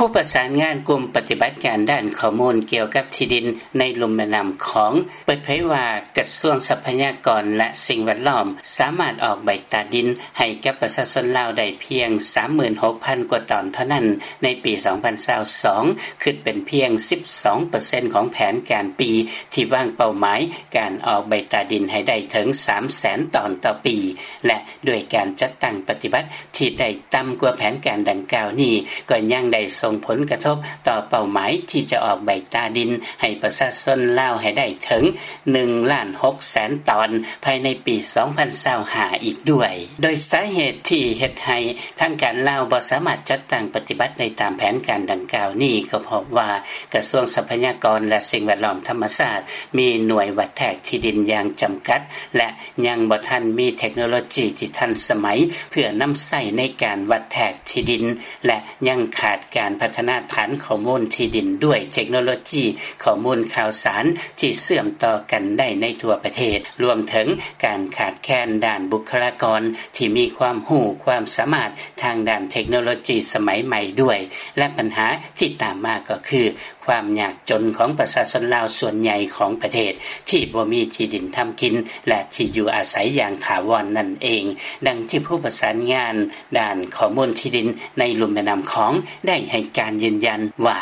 ຜູ້ປະສານງານກຸ່ມປະຕິບັດການດ້ານຂໍ້ມູນກ່ຽວກັບທີ່ດິນໃນລຸ່ມແມ່ນ້ຳຂອງ ເປີດເຜີຍວ່າ ກະຊວງຊັບພະຍາກອນ ແລະ ສິ່ງແວດລ້ອມ ສາມາດອອກໃບຕາດິນໃຫ້ກັບປະຊາຊົນລາວໄດ້ພຽງ ສາມໝື່ນຫົກພັນ ກວ່າຕອນເທົ່ານັ້ນໃນປີ ສອງພັນຊາວສອງ ຄິດເປັນພຽງ ສິບສອງເປີເຊັນ ຂອງແຜນການປີ ທີ່ວາງເປົ້າໝາຍການອອກໃບຕາດິນໃຫ້ໄດ້ເຖິງ ສາມແສນຕອນຕໍ່ປີ ແລະ ດ້ວຍການຈັດຕັ້ງປະຕິບັດ ທີ່ໄດ້ຕ່ຳກວ່າແຜນການດັ່ງກ່າວນີ້ ກໍຍັງໄດ້ສົ່ງຜົນກະທົບຕໍ່ເປົ້າໝາຍທີ່ຈະອອກໃບຕາດິນໃຫ້ປະຊາຊົນລາວໃຫ້ໄດ້ເຖິງ ໜຶ່ງລ້ານຫົກແສນຕອນ ພາຍໃນປີ ສອງພັນຊາວຫ້າ ອີກດ້ວຍ. ໂດຍສາເຫດທີ່ເຮັດໃຫ້ທາງການລາວບໍ່ສາມາດຈັດຕັ້ງປະຕິບັດໄດ້ຕາມແຜນການດັ່ງກ່າວນີ້ ກໍເພາະວ່າກະຊວງຊັບພະຍາກອນ ແລະ ສິ່ງແວດລ້ອມທຳມະຊາດ ມີໜ່ວຍວັດແທກທີ່ດິນຢ່າງຈຳກັດ ແລະ ຍັງບໍ່ທັນມີເທັກໂນໂລຈີທີ່ທັນສະໄໝ ເພື່ອນຳໃຊ້ໃນການວັດແທກທີ່ດິນ ແລະ ຍັງຂາດການພັດທະນາຖານຂໍ້ມູນທີ່ດິນດ້ວຍເທັກໂນໂລຈີຂໍ້ມູນຂ່າວສານທີ່ເຊື່ອມຕໍ່ກັນໄດ້ໃນທົ່ວປະເທດ, ລວມເຖິງການຂາດແຄນດ້ານບຸກຄະລາກອນທີ່ມີຄວາມຮູ້ຄວາມສາມາດທາງດ້ານເທັກໂນໂລຈີສະໄໝໃໝ່ດ້ວຍ ແລະ ບັນຫາທີ່ຕາມມາກໍຄື ຄວາມຍາກຈົນຂອງປະຊາຊົນລາວສ່ວນໃຫຍ່ຂອງປະເທດ ທີ່ບໍ່ມີທີ່ດິນທຳກິນ ແລະ ທີ່ຢູ່ອາໄສຢ່າງຖາວອນນັ້ນເອງ, ດັ່ງທີ່ຜູ້ປະສານງານດ້ານຂໍ້ມູນທີ່ດິນໃນລຸ່ມແມ່ນ້ຳຂອງໄດ້ໃຫ້ການຢືນຢັນວ່າ: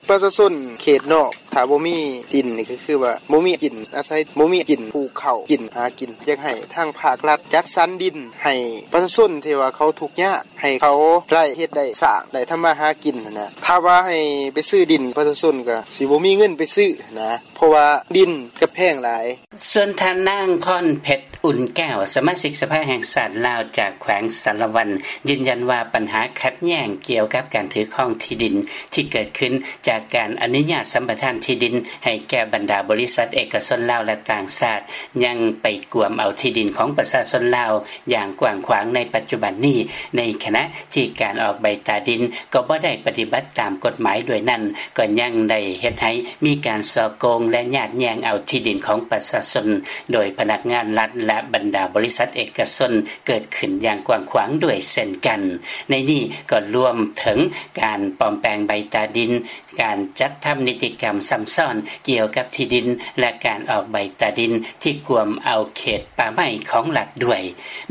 ປະຊາຊົນເຂດນອກ ຖ້າບໍ່ມີດິນນີ້ກໍຄືວ່າບໍ່ມີກິນອາໄສ, ບໍ່ມີກິນປູກເຂົ້າກິນຫາກິນ. ຢາກໃຫ້ທາງພາກລັດຈັດສັນດິນໃຫ້ປະຊາຊົນທີ່ວ່າເຂົາທຸກຍາກ ໃຫ້ເຂົາໄດ້ເຮັດໄດ້ສ້າງ ໄດ້ທຳມາຫາກິນຫັ້ນນະ. ຖ້າວ່າໃຫ້ໄປຊື້ດິນປະຊາຊົນກໍຊິບໍ່ມີເງິນໄປຊື້ນະ ເພາະວ່າດິນກໍແພງຫຼາຍ. ສ່ວນທ່ານນາງ ພອນເພັດ ອຸ່ນແກ້ວ ສະມາຊິກສະພາແຫ່ງຊາດລາວຈາກແຂວງສາລະວັນ ຢືນຢັນວ່າບັນຫາຂັດແຍ່ງກ່ຽວກັບການຖືຄອງທີ່ດິນທີ່ເກີດຂຶ້ນຈາກການອະນຸຍາດສຳປະທານທີ່ດິນໃຫ້ແກ່ບັນດາບໍລິສັດເອກະຊົນລາວ ແລະ ຕ່າງຊາດ ຍັງໄປກວມເອົາທີ່ດິນຂອງປະຊາຊົນລາວ ຢ່າງກວ້າງຂວາງໃນປັດຈຸບັນນີ້, ໃນຂະນະທີ່ການອອກໃບຕາດິນກໍບໍ່ໄດ້ປະຕິບັດຕາມກົດໝາຍດ້ວຍນັ້ນ, ກໍຍັງໄດ້ເຮັດໃຫ້ມີການສໍ້ໂກງ ແລະ ຍາດແຍ່ງເອົາທີ່ດິນຂອງປະຊາຊົນໂດຍພະນັກງານລັດ ແລະ ບັນດາບໍລິສັດເອກະຊົນເກີດຂຶ້ນຢ່າງກວ້າງຂວາງດ້ວຍເຊັ່ນກັນ. ໃນນີ້ກໍລວມເຖິງການປອມແປງໃບຕາດິນ, ການຈັດທຳນິຕິກຳຊ້ຳຊ້ອນກ່ຽວກັບທີ່ດິນ ແລະ ການອອກໃບຕາດິນທີ່ກວມເອົາເຂດປ່າໄມ້ຂອງລັດດ້ວຍ.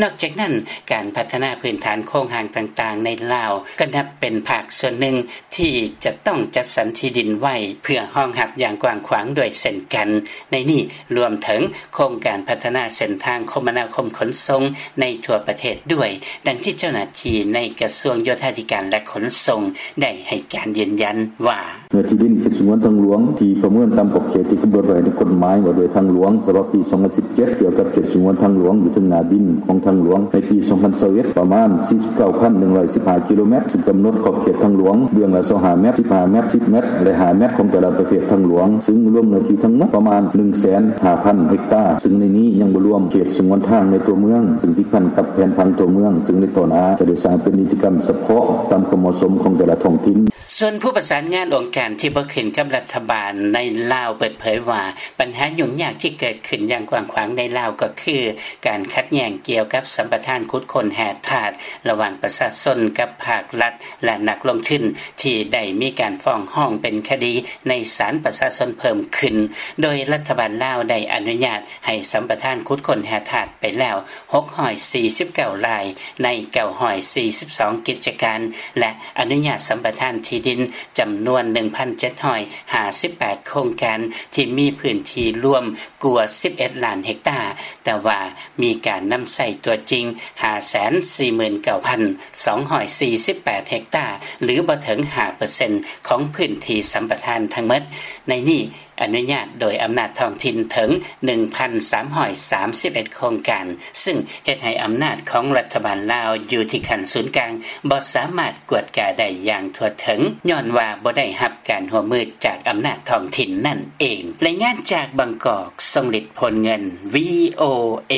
ນອກຈາກນັ້ນ, ການພັດທະນາພື້ນຖານໂຄງຮ່າງຕ່າງໆໃນລາວ ກໍນັບເປັນພາກສ່ວນໜຶ່ງທີ່ຈະຕ້ອງຈັດສັນທີ່ດິນໄວ້ເພື່ອຮອງຮັບຢ່າງກວ້າງຂວາງດ້ວຍເຊັ່ນກັນ. ໃນນີ້ລວມເຖິງໂຄງການພັດທະນາເສັ້ນທາງຄົມມະນາຄົມຂົນສົ່ງໃນທົ່ວປະເທດດ້ວຍ, ດັ່ງທີ່ເຈົ້າໜ້າທີ່ໃນກະຊວງໂຍທາທິການ ແລະ ຂົນສົ່ງ ໄດ້ໃຫ້ການຢືນຢັນວ່າ: ເນື້ອທີ່ດິນເຂດສະຫງວນທາງຫຼວງທີ່ປະເມີນຕາມຂອບເຂດທີ່ກຳນົດໄວ້ໃນກົດໝາຍວ່າດ້ວຍທາງຫຼວງ ສະບັບປີສອງພັນສິບເຈັດ ກ່ຽວກັບເຂດສະຫງວນທາງຫຼວງ ຢູ່ເທິງໜ້າດິນຂອງທາງຫຼວງ ໃນປີສອງພັນຊາວເອັດ ປະມານສີ່ສິບເກົ້າພັນໜຶ່ງຮ້ອຍສິບຫ້າກິໂລແມັດ, ຊຶ່ງກຳນົດຂອບເຂດທາງຫຼວງເບື້ອງລະຊາວຫ້າແມັດ, ສິບຫ້າແມັດ, ສິບແມັດ ແລະ ຫ້າແມັດ ຂອງແຕ່ລະປະເພດທາງຫຼວງ, ຊຶ່ງລວມເນື້ອທີ່ທັງໝົດປະມານໜຶ່ງແສນຫ້າພັນເຮັກຕາ, ຊຶ່ງໃນນີ້ຍັງບໍ່ລວມເຂດສະຫງວນທາງໃນຕົວເມືອງ, ຊຶ່ງຕິດພັນກັບແຜນຜັງຕົວເມືອງ, ຊຶ່ງໃນຕໍ່ໜ້າຈະໄດ້ສ້າງເປັນນິຕິກຳສະເພາະຕາມຄວາມເໝາະສົມຂອງແຕ່ລະທ້ອງຖິ່ນ. ສ່ວນຜູ້ປະສານງານອົງການທີ່ບໍ່ຂຶ້ນກັບລັດຖະບານໃນລາວເປີດເຜີຍວ່າ ບັນຫາຫຍຸ້ງຍາກທີ່ເກີດຂຶ້ນຢ່າງກວ້າງຂວາງໃນລາວກໍຄື ການຂັດແຍ່ງກ່ຽວກັບສຳປະທານຂຸດຄົ້ນແຮ່ທາດລະຫວ່າງປະຊາຊົນກັບພາກລັດ ແລະ ນັກລົງທຶນ ທີ່ໄດ້ມີການຟ້ອງຮ້ອງເປັນຄະດີໃນສານປະຊາຊົນເພີ່ມຂຶ້ນ, ໂດຍລັດຖະບານລາວໄດ້ອະນຸຍາດໃຫ້ສຳປະທານຂຸດຄົ້ນແຮ່ທາດໄປແລ້ວ ຫົກຮ້ອຍສີ່ສິບເກົ້າລາຍ ໃນເກົ້າຮ້ອຍສີ່ສິບສອງກິດຈະການ ແລະ ອະນຸຍາດສຳປະທານທີ່ດິນຈຳນວນໜຶ່ງພັນເຈັດຮ້ອຍຫ້າສິບແປດໂຄງການ ທີ່ມີພື້ນທີ່ລວມກວ່າສິບເອັດລ້ານເຮັກຕາ, ແຕ່ວ່າມີການນຳໃຊ້ຕົວຈິງຫ້າແສນສີ່ໝື່ນເກົ້າພັນສອງຮ້ອຍສີ່ສິບແປດເຮັກຕາ ຫຼື ບໍ່ເຖິງຫ້າເປີເຊັນຂອງພື້ນທີ່ສຳປະທານທັງໝົດ. ໃນນີ້ ອະນຸຍາດໂດຍອຳນາດທ້ອງຖິ່ນເຖິງໜຶ່ງພັນສາມຮ້ອຍສາມສິບເອັດໂຄງການ, ຊຶ່ງເຮັດໃຫ້ອຳນາດຂອງລັດຖະບານລາວຢູ່ທີ່ຂັ້ນສູນກາງບໍ່ສາມາດກວດກາໄດ້ຢ່າງທົ່ວເຖິງ, ຍ້ອນວ່າບໍ່ໄດ້ຮັບການຮ່ວມມືຈາກອຳນາດທ້ອງຖິ່ນນັ້ນເອງ. ລາຍງານຈາກບາງກອກ, ຊົງລິດ ໂພນເງິນ, ວີໂອເອ.